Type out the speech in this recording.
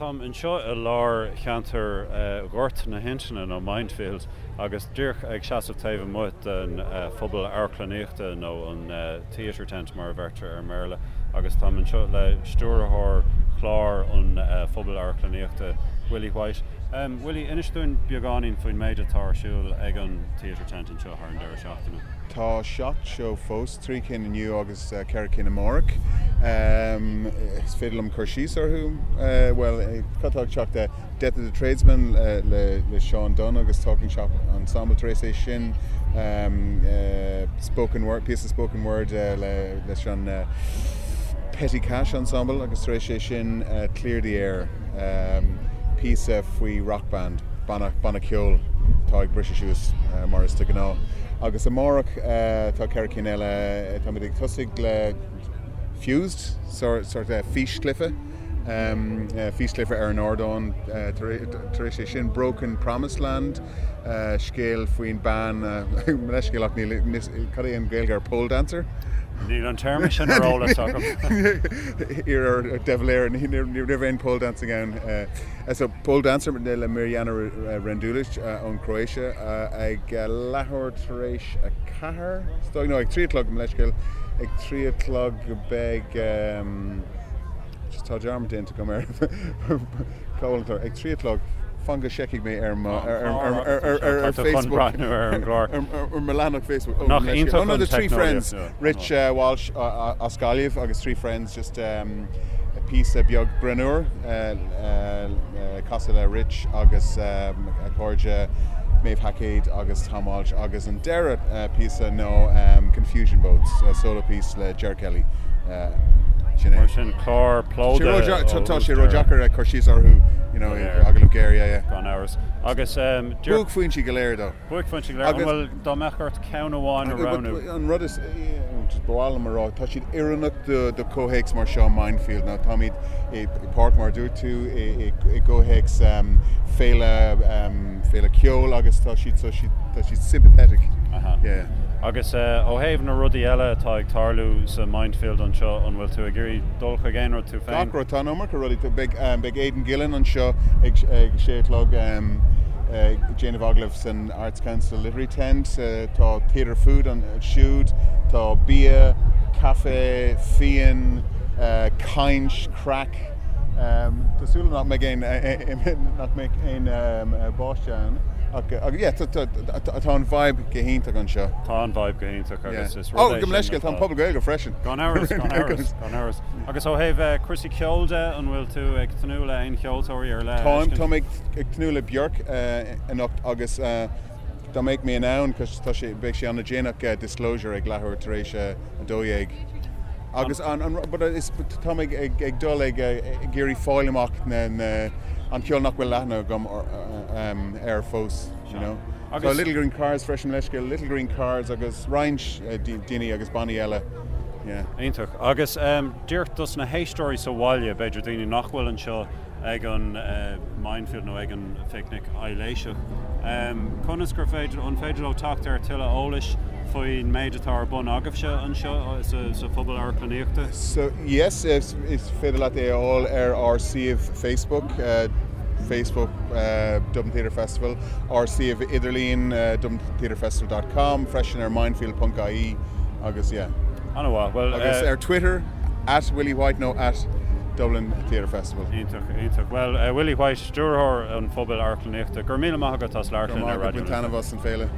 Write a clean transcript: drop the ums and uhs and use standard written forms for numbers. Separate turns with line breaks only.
Táim anseo i lár cheantar Ghort na hIntinne, nó Mindfield, agus díreach ag seasamh taobh amuigh den phuball amharclannaíochta, nó an Theatre Tent mar a bheirtear ar an mBéarla, agus táim anseo le stiúrthóir chlár an Phubaill Amharclannaíochta, Willie White. Willie, inis dúinn beagáinín faoin méid atá ar siúl ag an Theatre Tent anseo thar an deireadh seachtaine.
Tá 7 seó fós, 3 cinn inniu agus 4 cinn amárach. Is féidir liom cur síos orthu? Bhuel, cad tá ag teacht? Death of the Tradesman le Seán Dunne agus Talking Shop Ensemble tar éis é sin, Spoken Word, píosa spoken word leis an Petty Cash Ensemble agus tar éis é sin Clear the Air, píosa faoi rock band, banna, banna ceoil atá ag briseadh suas mar is de ghnáth. Agus amárach tá 4 cinn eile, táimid ag tosaigh le Fused, sórt físchluiche. Físchluiche ar an ardán tar éis é sin, Broken Promised Land, scéal faoin bean, mo leithscéal ach níl, cad é an Ghaeilge ar pole dancer?
Níl an téarma sin ar eolas agam.
Iarr ar De Valera, ní raibh aon pole dancing ann. So pole dancer le Mirjana Rendulic ón Croatia ag leathuair tar éis 4, no ag 3 a chlog, mo leithscéal, ag 3 a chlog beidh, Just tá dearmad déanta agam ar cá bhfuil an clár. Ag 3 a chlog, fan go seicefaidh mé ar mo ar Facebook.
Breathnú ar an gclár.
Ar mo leathanach Facebook.
Nach iontach an
The Three Friends, Rich Walsh as Gaillimh agus Three Friends just píosa beag greannmhar casadh le Rich agus a chairde Maeve Haicéad agus Tom Walsh agus an deireadh píosa nó Confusion Boats, solo piece le Ger Kelly.
Sin é. Mar sin, clár plódaithe
ó Tá sé ródheacair cur síos orthu, you know, agallamh géar, yeah, yeah.
Gan amhras. Agus
Buaicphointí go léir, though.
Buaicphointí go léir. An bhfuil, dá mbeadh ort ceann amháin a roghnú?
An rud is, just ba mhaith liom a rá, tá siad oiriúnach do do chomhthéacs mar seo Mindfield. Now táimid i páirc mar a dúirt tú, i gcomhthéacs féile, féile ceoil agus tá siad, tá siad sympathetic.
Aha.
Yeah.
Agus ó thaobh na rudaí eile atá ag tarlú sa Mindfield anseo, an bhfuil tú ag iarraidh dul chuig aon rud tú féin?
Gach rud, tá an iomarca rudaí. Beidh, beidh Aidan Gillen anseo ag sé a chlog ag déanamh agallaimh san Arts Council Literary Tent. Tá Theatre Food ansiúd, tá bia, caife, fíon, caint, craic. Tá súil agam nach mbeidh aon, nach mbeidh aon báisteach ann. Ach yeah, tá an vibe go hiontach anseo.
Tá an vibe go hiontach agus is rud é
sin. Ó, gabh mo leithscéal, tá an Puball Gaeilge freisin.
Gan amhras, gan amhras, gan amhras. Agus ó thaobh cúrsaí ceoil de, an bhfuil tú ag tnúth le aon cheoltóirí ar leith a
fheiscint? Táim, táim ag tnúth le Björk anocht agus dá mbeadh mé in ann, cos tá sé, beidh sé an-déanach, Disclosure ag leathuair tar éis a 12. Agus an, an, but is, tá mé ag, ag dul ag, ag iarraidh fáil amach na, na, an ceol nach bhfuil aithne agam air fós, you know. Agus. Tá Little Green Cars freisin, leithscéal, Little Green Cars agus roinnt daoine agus bannaí eile, yeah.
Iontach. Agus díreach dos na héisteoirí sa bhaile, b'fhéidir daoine nach bhfuil anseo ag an Mindfield nó ag an Phicnic Aibhléiseach, conas gur féidir, an féidir leo teacht ar tuilleadh eolais faoin méid atá ar bun agaibhse anseo sa Phuball Amharclannaíochta?
So, yes, is féidir leat é a fháil ar ár suíomh Facebook, Facebook Dublin Theatre Festival, ár suíomh idirlín dublintheatrefestival dot com, freisin ar mindfield ponc ie agus yeah.
An-mhaith. Bhuel,
Agus ar Twitter, at Willie White nó at Dublin Theatre Festival.
Iontach, iontach. Bhuel, Willie White, Stiúrthóir an Phubail Amharclannaíochta, go raibh míle maith agat as labhairt
linn ar Raidió na Life. Go raibh maith agat, bain taitneamh as an féile.